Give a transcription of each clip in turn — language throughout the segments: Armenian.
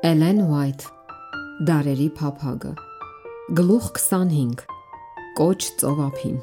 Էլեն Ուայթ Դարերի փափագը Գլուխ 25 Կոչ ծովափին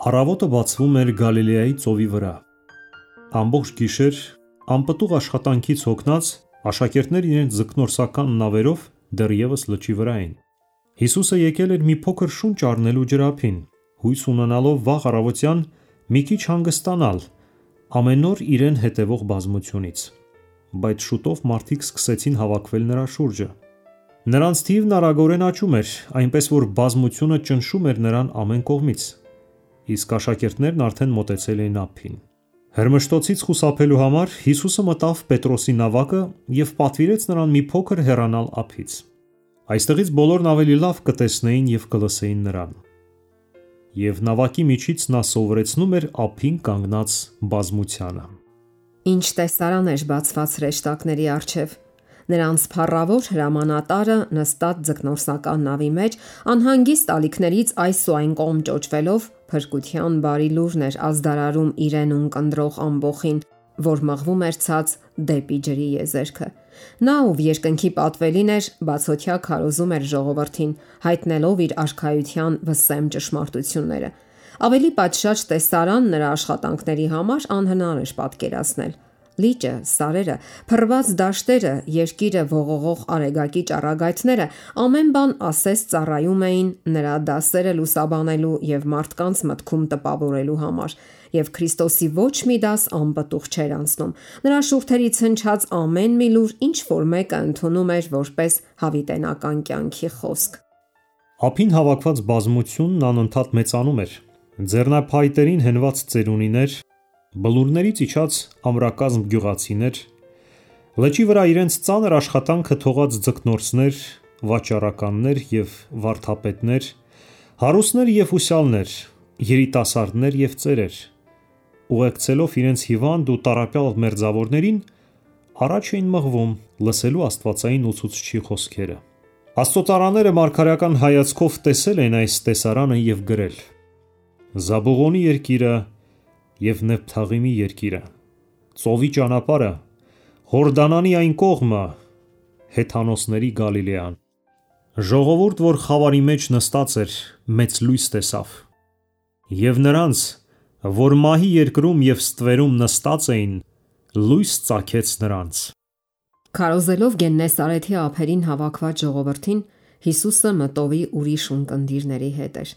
Առավոտը բացվում էր Գալիլեայի ծովի վրա։ Ամբողջ գիշեր անպտուղ աշխատանքից հոգնած աշակերտներն իրենց ձկնորսական նավերով դեռևս լճի վրա էին։ Հիսուսը եկել էր մի փոքր շունչ առնելու ջրափին, հույս ունենալով վաղ առավոտյան մի քիչ հանգստանալ ամեն օր իրեն հետևող բազմությունից։ Բայց շուտով մարդիկ սկսեցին հավաքվել նրա շուրջը։ Նրանց թիվն արագորեն աճում էր, այնպես որ բազմությունը ճնշում էր նրան ամեն կողմից, իսկ աշակերտներն արդեն մոտեցել էին ափին։ Հրմշտոցից խուսափելու համար Հիսուսը մտավ Պետրոսի նավակը և պատվիրեց նրան մի փոքր հեռանալ ափից։ Այստեղից բոլորն ավելի լավ կտեսնեին և կլսեին նրան։ Եվ նավակի միջից նա սովորեցնում էր ափին կանգնած բազմությանը։ Ինչ տեսարան էր բացված հրեշտակների առջև։ Նրանց փառավոր հրամանատարը նստած ձկնորսական նավի մեջ անհանգիստ ալիքներից այս ու այն կողմ ճոճվելով փրկության բարի լուրն էր ազդարարում իրեն ունկնդրող ամբոխին, որ մղվում էր ցած դեպի ջրի եզերքը։ Նա, ով երկնքի պատվելին էր, բացօթյա քարոզում էր ժողովրդին, հայտնելով իր արքայության վսեմ ճշմարտությունները։ Ավելի պատշաճ տեսարան նրա աշխատանքների համար անհնար էր պատկերացնել։ Լիճը, սարերը, փռված դաշտերը, երկիրը ողողող արեգակի ճառագայթները ամեն բան ասես ծառայում էին նրա դասերը լուսաբանելու եւ մարդկանց մտքում տպավորելու համար, եւ Քրիստոսի ոչ մի դաս անպտուղ չէր անցնում։ Նրա շուրթերից հնչած ամեն մի լուր ինչ որ մեկը ընդունում էր որպես հավիտենական կյանքի խոսք։ Ափին հավաքված բազմությունն անընդհատ մեծանում էր։ Ձեռնափայտերին հենված ծերունիներ, բլուրներից իջած ամրակազմ գյուղացիներ, լճի վրա իրենց ծանր աշխատանքը թողած ձկնորսներ, վաճառականներ եւ վարդապետներ, հարուստներ եւ ուսյալներ, երիտասարդներ եւ ծերեր, ուղեկցելով իրենց հիվանդ ու տառապյալ մերձավորներին, առաջ էին մղվում լսելու աստվածային ուսուցչի խոսքերը։ Աստծոծարաները մարգարեական հայացքով տեսել են այս տեսարանը եւ գրել. Զաբուղոնի երկիրը և Նեփթաղիմի երկիրը, ծովի ճանապարհը, Հորդանանի այն կողմը, հեթանոսների Գալիլեան։ Ժողովուրդ, որ խավարի մեջ նստած էր, մեծ լույս տեսավ, և նրանց, որ մահի երկրում և ստվերում նստած էին, լույս ծագեց նրանց։ Քարոզելով Գեննեսարեթի ափերին հավաքված ժողովրդին, Հիսուսը մտովի ուրիշ ունկնդիրների հետ էր։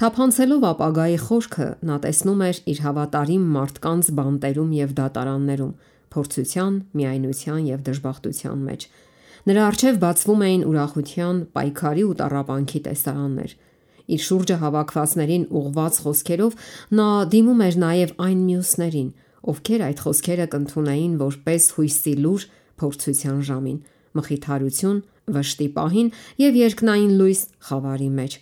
Թափանցելով ապագայի խորքը, նա տեսնում էր իր հավատարիմ մարդկանց բանտերում եւ դատարաններում, փորձության, միայնության եւ դժբախտության մեջ։ Նրա առջև բացվում էին ուրախության, պայքարի ու տառապանքի տեսարաններ։ Իր շուրջը հավաքվածներին ուղված խոսքերով նա դիմում էր նաեւ այն մյուսներին, ովքեր այդ խոսքերը կընդունեին որպես հույսի լուր փորձության ժամին, մխիթարություն, վշտի պահին եւ երկնային լույս խավարի մեջ։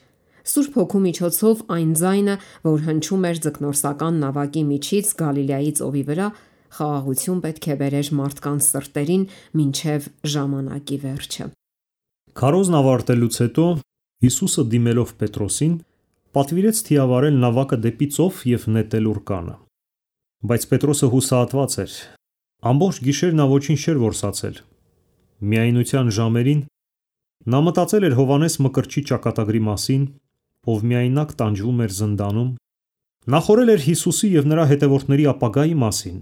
Սուրբ Հոգու միջոցով այն ձայնը, որ հնչում էր ձկնորսական նավակի միջից Գալիլեայի ծովի վրա, խաղաղություն պետք է բերեր մարդկանց սրտերին մինչև ժամանակի վերջը։ Քարոզն ավարտելուց հետո Հիսուսը դիմելով Պետրոսին, պատվիրեց թիավարել նավակը դեպի ծով եւ նետել ուռկանը։ Բայց Պետրոսը հուսահատված էր։ Ամբողջ գիշեր նա ոչինչ չէր որսացել։ Միայնության ժամերին նա մտածել էր Հովհաննես Մկրտչի ճակատագրի մասին, ով միայնակ տանջվում էր զնդանում, նախորել էր Հիսուսի և նրա հետևորդների ապագայի մասին,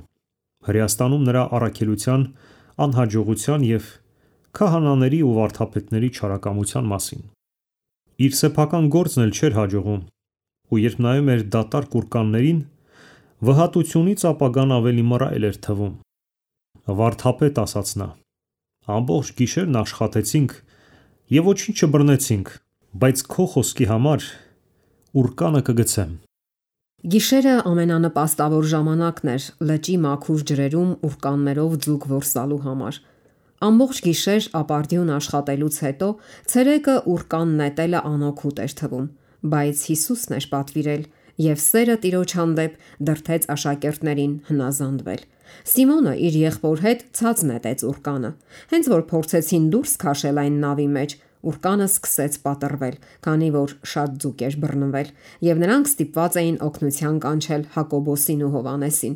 Հրեաստանում նրա առաքելության, անհաջողության և քահանաների ու վարդապետների չարակամության մասին։ Իր սեփական գործն էլ չէր հաջողում, ու երբ նայում էր դատարկ ուռկաններին, վհատությունից ապագան ավելի մռայլ էր թվում։ Վարդապետ, ասաց նա, ամբողջ գիշերն աշխատեցինք և ոչինչ չբռնեցինք, բայց քո խոսքի համար ուռկանը կգցեմ։ Գիշերը ամենանպաստավոր ժամանակն էր լճի մաքուր ջրերում ուռկաններով ձուկ որսալու համար։ Ամբողջ գիշեր ապարդյուն աշխատելուց հետո ցերեկը ուռկան նետելը անօգուտ էր թվում, բայց Հիսուսն էր պատվիրել եւ սերը Տիրոջ հանդեպ դրդեց աշակերտներին հնազանդվել։ Սիմոնը իր եղբոր հետ ցած նետեց ուռկանը։ Հենց որ փորձեցին դուրս քաշել այն նավի մեջ, ուռկանը սկսեց պատռվել, քանի որ շատ ձուկ էր բռնվել, եւ նրանք ստիպված էին օգնության կանչել Հակոբոսին ու Հովհաննեսին։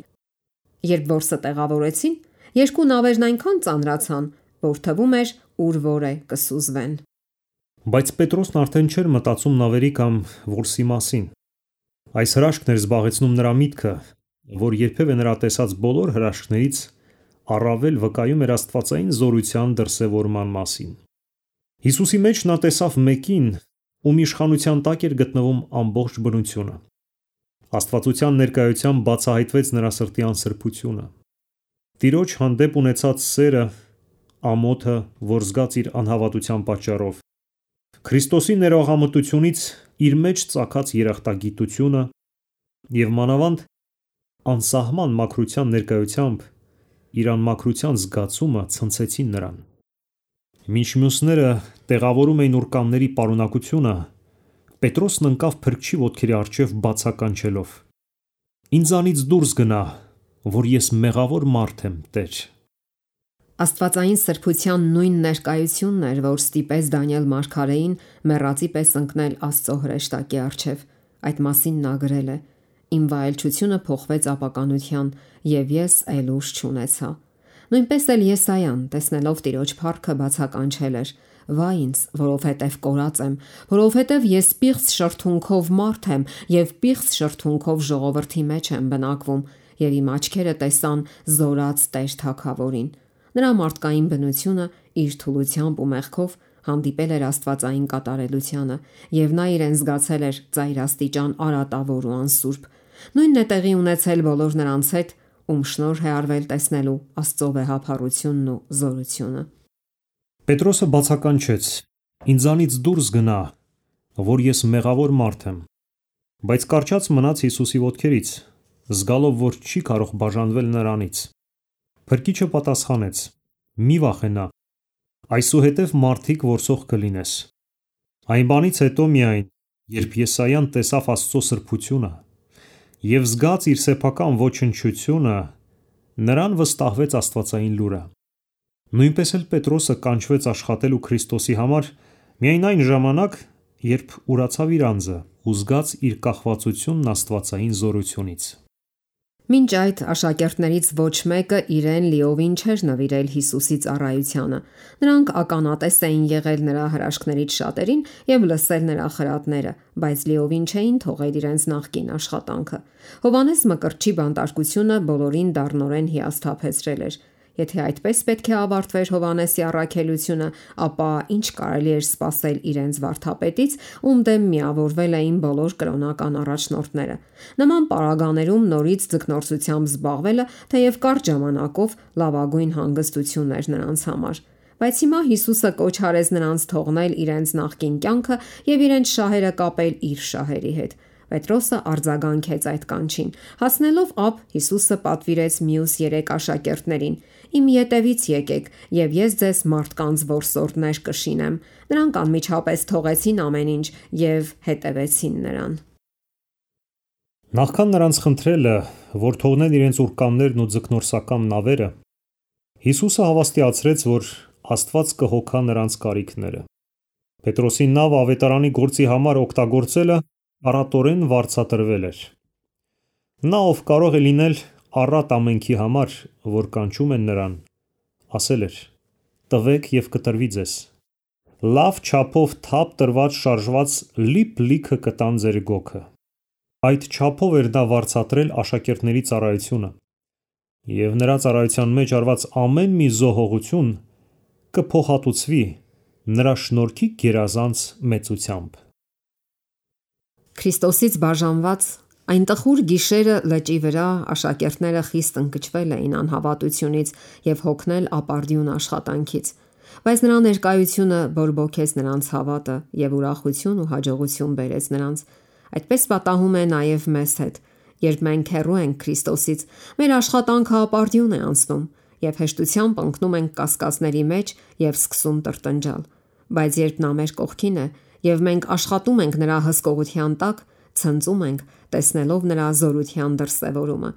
Երբ որսը տեղավորեցին, երկու նավերն այնքան ծանրացան, որ թվում էր ուր որ է կսուզվեն։ Բայց Պետրոսն արդեն չէր մտածում նավերի կամ որսի մասին։ Այս հրաշքն էր զբաղեցնում նրա միտքը, որ երբևէ նրա տեսած բոլոր հրաշքներից առավել վկայում էր աստվածային զորության դրսևորման մասին։ Հիսուսի մեջ նա տեսավ մեկին, ում իշխանության տակ էր գտնվում ամբողջ բնությունը։ Աստվածության ներկայությամբ բացահայտվեց նրա սրտի անսրբությունը։ Տիրոջ հանդեպ ունեցած սերը, ամոթը, որ զգաց իր անհավատության պատճառով, Քրիստոսի ներողամտությունից իր մեջ ծագած երախտագիտությունը և մանավանդ անսահման մաքրության ներկայությամբ իր անմաքրության զգացումը ցնցեցին նրան։ Մինչ մյուսները տեղավորում էին ուրկանների պարունակությունը, Պետրոսն ընկավ փրկչի ոտքերի առջև բացականչելով. «Ինձանից դուրս գնա, որ ես մեղավոր մարդ եմ, Տեր»։ Աստվածային սրբության նույն ներկայությունն էր, որ ստիպեց Դանիել մարգարեին մեռածի պես ընկնել Աստծո հրեշտակի առջև։ Այդ մասին նա գրել է. «Իմ վայելչությունը փոխվեց ապականության, և ես այլ ուժ չունեցա»։ Նույնպես էլ Եսայան, տեսնելով Տիրոջ փառքը, բացականչել էր. «Վայ ինձ, որովհետև կորած եմ, որովհետև ես պիղծ շրթունքով մարդ եմ և պիղծ շրթունքով ժողովրդի մեջ եմ բնակվում, և իմ աչքերը տեսան զորած Տեր Թագավորին»։ Նրա մարդկային բնությունը իր թուլությամբ ու մեղքով հանդիպել էր աստվածային կատարելությանը, և նա իրեն զգացել էր ծայրաստիճան արատավոր ու անսուրբ։ Նույնն է տեղի ունեցել բոլոր նրանց հետ, ում շնորհ է արվել տեսնելու Աստծո վեհափառությունն ու զորությունը։ Պետրոսը բացականչեց. «Ինձանից դուրս գնա, որ ես մեղավոր մարդ եմ»։ Բայց կառչած մնաց Հիսուսի ոտքերից, զգալով, որ չի կարող բաժանվել նրանից։ Փրկիչը պատասխանեց. «Մի վախենա, այսուհետև մարդիկ որսող կլինես»։ Այն բանից հետո միայն, երբ Եսայան տեսավ Աստծո սրբությունը և զգաց իր սեփական ոչնչությունը, նրան վստահվեց աստվածային լուրը։ Նույնպես էլ Պետրոսը կանչվեց աշխատելու Քրիստոսի համար միայն այն ժամանակ, երբ ուրացավ իր անձը ու զգաց իր կախվածությունն աստվածային զորությունից։ Մինչ այդ աշակերտներից ոչ մեկը իրեն լիովին չէր նվիրել Հիսուսի ծառայությանը։ Նրանք ականատես էին եղել նրա հրաշքներից շատերին և լսել նրա խրատները, բայց լիովին չէին թողել իրենց նախկին աշխատանքը։ Հովհաննես Մկրտչի բանտարկությունը բոլորին դառնորեն հիասթափեցրել էր։ Եթե այդպես պետք է ավարտվեր Հովհաննեսի առաքելությունը, ապա ինչ կարելի էր սպասել իրենց վարդապետից, ում դեմ միավորվել էին բոլոր կրոնական առաջնորդները։ Նման պարագաներում նորից ձգնորսությամբ զբաղվելը թեև կարճ ժամանակով լավագույն հանգստություն էր նրանց համար։ Բայց հիմա Հիսուսը կոչ արեց նրանց թողնել իրենց նախկին կյանքը և իրենց շահերը կապել իր շահերի հետ։ Պետրոսը արձագանքեց այդ կանչին։ Հասնելով ափ, Հիսուսը պատվիրեց մյուս 3 աշակերտներին. «Իմ ետևից եկեք, և ես ձեզ մարդկանց որսորդներ կշինեմ»։ Նրանք անմիջապես թողեցին ամեն ինչ և հետևեցին նրան։ Նախքան նրանց խնդրելը, որ թողնեն իրենց ուրկաններն ու ձկնորսական նավերը, Հիսուսը հավաստիացրեց, որ Աստված կհոգա նրանց կարիքները։ Պետրոսի նավը ավետարանի գործի համար օգտագործելը առատորեն վարձատրվել էր։ Նա, ով կարող է լինել առատ ամենքի համար, որ կանչում են նրան, ասել էր. «Տվեք և կտրվի ձեզ»։ Լավ չափով թափ տրված շարժված լիփ-լիքը կտան ձեր գոգը։ Այդ չափով էր նա վարձատրել աշակերտների ծառայությունը, և նրա ծառայության մեջ արված ամեն մի զոհողություն կփոխհատուցվի նրա շնորհքի գերազանց մեծությամբ։ Քրիստոսից բաժանված այն տխուր գիշերը լճի վրա աշակերտները խիստ ընկճվել էին անհավատությունից և հոգնել ապարդյուն աշխատանքից։ Բայց նրա ներկայությունը բորբոքեց նրանց հավատը և ուրախություն ու հաջողություն բերեց նրանց։ Այդպես պատահում է նաև մեզ հետ։ Երբ մենք հեռու ենք Քրիստոսից, մեր աշխատանքը ապարդյուն է անցնում, և հեշտությամբ ընկնում ենք կասկածների մեջ և սկսում տրտնջալ։ Բայց երբ նա մեր կողքին է և մենք աշխատում ենք նրա հսկողության տակ, ցնծում ենք, տեսնելով նրա զորության դրսևորումը։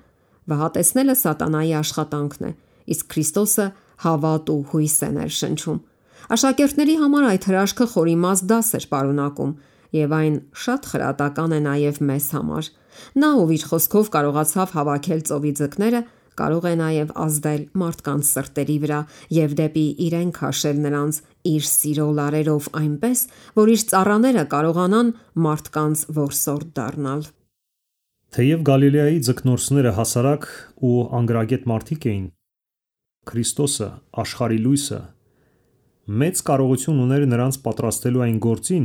Վհատեցնելը սատանայի աշխատանքն է, իսկ Քրիստոսը հավատ ու հույս է ներշնչում։ Աշակերտների համար այդ հրաշքը խորիմաստ դաս էր պարունակում, և այն շատ խրատական է նաև մեզ համար։ Նա, ով իր խոսքով կարողացավ հավաքել ծովի ձկները, կարող է նաև ազդել մարդկանց սրտերի վրա եւ դեպի իրեն քաշել նրանց իր սիրո լարերով այնպես, որ իր ծառաները կարողանան մարդկանց որսորդ դառնալ։ Թեև Գալիլեայի ձկնորսները հասարակ ու անգրագետ մարդիկ էին, Քրիստոսը, աշխարհի լույսը, մեծ կարողություն ուներ նրանց պատրաստելու այն գործին,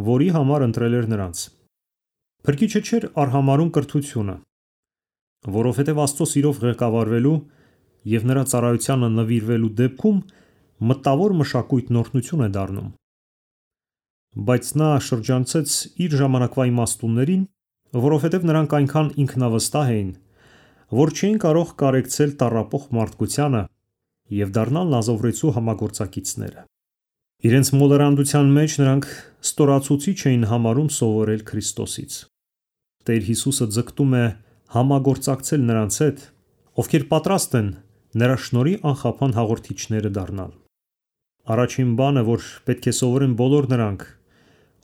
որի համար ընտրել էր նրանց։ Փրկիչը չէր արհամարհում կրթությունը, որովհետև Աստծո սիրով ղեկավարվելու եւ նրա ծառայությանը նվիրվելու դեպքում մտավոր մշակույթն օրհնություն է դառնում։ Բայց նա շրջանցեց իր ժամանակվա իմաստուններին, որովհետև նրանք այնքան ինքնավստահ էին, որ չէին կարող կարեկցել տառապող մարդկությանը եւ դառնալ նազովրեցու համագործակիցները։ Իրենց մոլորանդության մեջ նրանք ստորացուցիչ էին համարում սովորել Քրիստոսից։ Տեր Հիսուսը ձգտում է համագործակցել նրանց հետ, ովքեր պատրաստ են նրա շնորհի անխափան հաղորդիչները դառնալ։ Առաջին բանը, որ պետք է սովորեն բոլոր նրանք,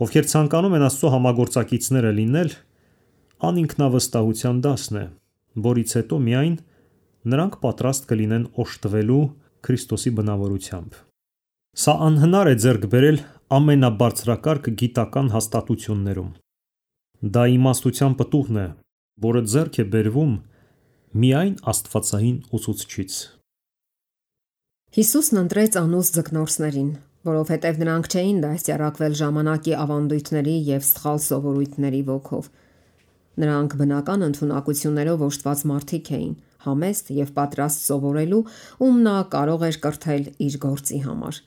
ովքեր ցանկանում են Աստծո համագործակիցները լինել, անինքնավստահության դասն է, որից հետո միայն նրանք պատրաստ կլինեն օժտվելու Քրիստոսի բնավորությամբ։ Սա անհնար է ձեռք բերել ամենաբարձրակարգ գիտական հաստատություններում։ Դա իմաստության պտուղն է, որը ձեռք է բերվում միայն աստվածային ուսուցչից։ Հիսուսն ընտրեց անուս ձկնորսներին, որովհետև նրանք չէին դաստիարակվել ժամանակի ավանդույթների եւ սխալ սովորույթների ոգով։ Նրանք բնական ընդունակություններով օժտված մարդիկ էին, համեստ եւ պատրաստ սովորելու, ում նա կարող էր կրթել իր գործի համար։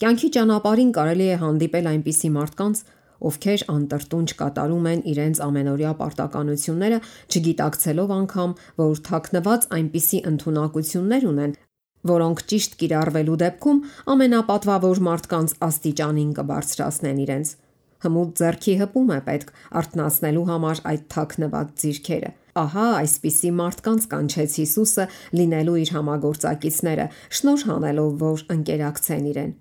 Կյանքի ճանապարհին կարելի է հանդիպել այնպիսի մարդկանց, ովքեր անտրտունջ կատարում են իրենց ամենօրյա պարտականությունները, չգիտակցելով անգամ, որ թաքնված այնպիսի ընդունակություններ ունեն, որոնք ճիշտ կիրառվելու դեպքում ամենապատվավոր մարդկանց աստիճանին կբարձրացնեն իրենց։ Հմուտ ձեռքի հպում է պետք արթնացնելու համար այդ թաքնված ձիրքերը։ Ահա այսպիսի մարդկանց կանչեց Հիսուսը լինելու իր համագործակիցները, շնորհ հանելով, որ ընկերակցեն իրեն։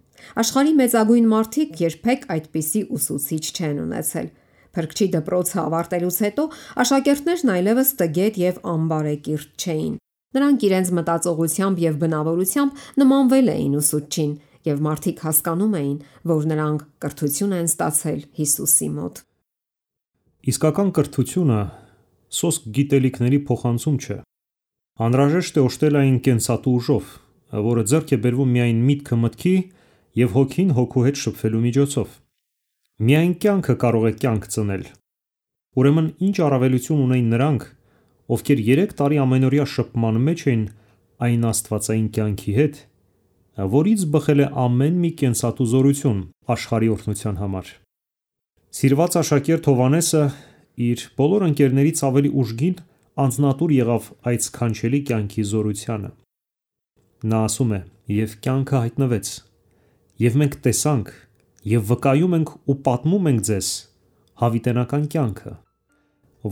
Աշխարհի մեծագույն մարդիկ երբեք այդպիսի ուսուցիչ չեն ունեցել։ Փրկչի դպրոցը ավարտելուց հետո աշակերտներն այլևս տգետ եւ անբարեկիրթ չէին։ Նրանք իրենց մտածողությամբ եւ բնավորությամբ նմանվել էին ուսուցչին, եւ մարդիկ հասկանում էին, որ նրանք կրթություն են ստացել Հիսուսի մոտ։ Իսկական կրթությունը սոսկ գիտելիքների փոխանցում չէ։ Անհրաժեշտ է օժտել այն կենսատու ուժով, որը ձեռք է բերվում միայն միտքը մտքի եւ հոգին հոգու հետ շփվելու միջոցով։ Միայն կյանքը կարող է կյանք ծնել։ Ուրեմն ինչ առավելություն ունեն նրանք, ովքեր 3 տարի ամենօրյա շփման մեջ են այն աստվածային կյանքի հետ, որից բխել է ամեն մի կենսատու զորություն աշխարհի օրհնության համար։ Սիրված աշակերտ Հովհաննեսը իր բոլոր ընկերներից ավելի ուժգին անձնատուր եղավ այդ սքանչելի կյանքի զորությանը։ Նա ասում է. «Եվ կյանքը հայտնվեց, եւ մենք տեսանք, եւ վկայում ենք ու պատմում ենք ձեզ հավիտենական կյանքը,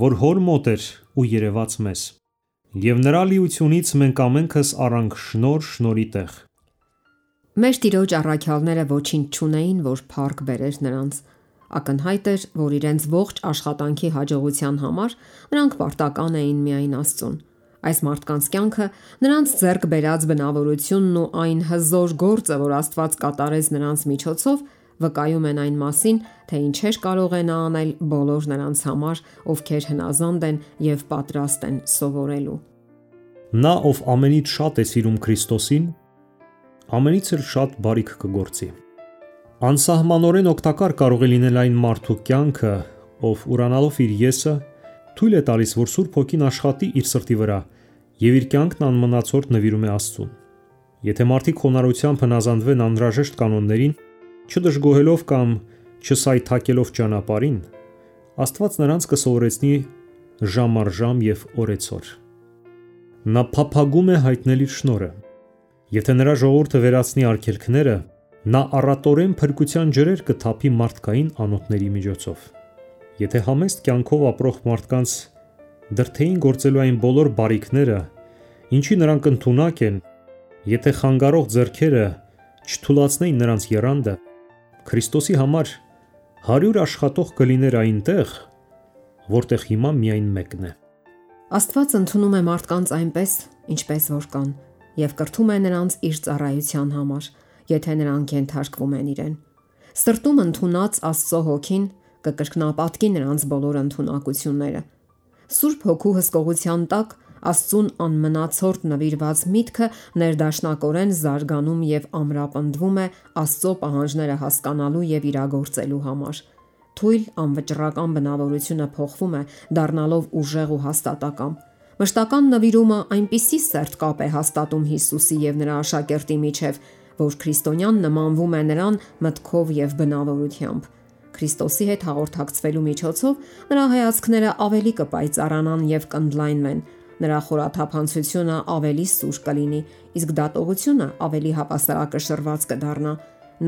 որ հոր մոտ էր ու երևաց մեզ, եւ նրա լիությունից մենք ամենքս առանք շնորհ շնորհի տեղ»։ Մեր Տիրոջ առաքյալները ոչինչ չունեին, որ փառք բերեր նրանց։ Ակնհայտ էր, որ իրենց ողջ աշխատանքի հաջողության համար նրանք պարտական էին միայն Աստծուն։ Այս մարդկանց կյանքը, նրանց ձեռք բերած բնավորությունն ու այն հզոր գործը, որ Աստված կատարեց նրանց միջոցով, վկայում են այն մասին, թե ինչեր կարող է նա անել բոլոր նրանց համար, ովքեր հնազանդ են եւ պատրաստ են սովորելու։ Նա, ով ամենից շատ է սիրում Քրիստոսին, ամենից էլ շատ բարիք կգործի։ Անսահմանորեն օգտակար կարող է լինել այն մարդու կյանքը, ով ուրանալով իր եսը, թույլ է տալիս, որ Սուրբ Հոգին աշխատի իր սրտի վրա եւ իր կյանքն անմնացորդ նվիրում է Աստծուն։ Եթե մարդիկ խոնարհությամբ հնազանդվեն անհրաժեշտ կանոններին, չդժգոհելով կամ չսայթաքելով ճանապարհին, Աստված նրանց կսովորեցնի ժամ առ ժամ եւ օրեցօր։ Նա փափագում է հայտնել իր շնորհը։ Եթե նրա ժողովուրդը վերացնի արգելքները, նա առատորեն փրկության ջրեր կթափի մարդկային անոթների միջոցով։ Եթե համեստ կյանքով ապրող մարդկանց դրդեին գործելու այն բոլոր բարիքները, ինչի նրանք ընդունակ են, եթե խանգարող ձեռքերը չթուլացնեին նրանց եռանդը, Քրիստոսի համար 100 աշխատող կլիներ այնտեղ, որտեղ հիմա միայն մեկն է։ Աստված ընդունում է մարդկանց այնպես, ինչպես որ կան, եւ կրթում է նրանց իր ծառայության համար, եթե նրանք ենթարկվում են իրեն։ Սրտում ընդունած Աստծո հոգին կկրկնապատկի նրանց բոլոր ընդունակությունները։ Սուրբ Հոգու հսկողության տակ Աստծուն անմնացորդ նվիրված միտքը ներդաշնակորեն զարգանում եւ ամրապնդվում է Աստծո պահանջները հասկանալու եւ իրագործելու համար։ Թույլ անվճռական բնավորությունը փոխվում է, դառնալով ուժեղ ու հաստատակամ։ Մշտական նվիրումը այնպիսի սերտ կապ է հաստատում Հիսուսի եւ նրա աշակերտի միջև, որ քրիստոնյան նմանվում է նրան մտքով եւ բնավորությամբ։ Քրիստոսի հետ հաղորդակցվելու միջոցով նրա հայացքները ավելի կպայծառանան եւ կընդլայնվեն, նրա խորաթափանցությունը ավելի սուր կլինի, իսկ դատողությունը ավելի հավասարակշռված կդառնա։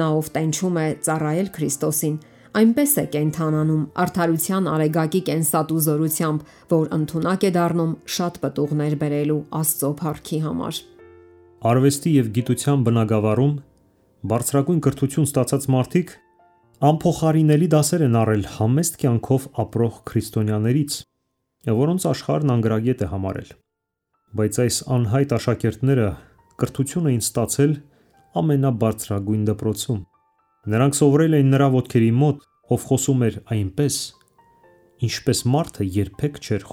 Նա ով տենչում է ծառայել Քրիստոսին, այնպես է կենթանանում արդարության արեգակի կենսատու զորությամբ, որ ընդունակ է դառնում շատ պտուղներ բերելու Աստծո փառքի համար։ Արվեստի եւ գիտության բնագավառում բարձրագույն կրթություն ստացած մարդիկ անփոխարինելի դասեր են առել համեստ կյանքով ապրող քրիստոնյաներից, որոնց աշխարհն անգրագետ է համարել։ Բայց այս անհայտ աշակերտները կրթություն էին ստացել ամենաբարձրագույն դպրոցում։ Նրանք սովորել էին նրա ոտքերի մոտ, ով խոսում էր այնպես, ինչպես մարդը երբեք չէր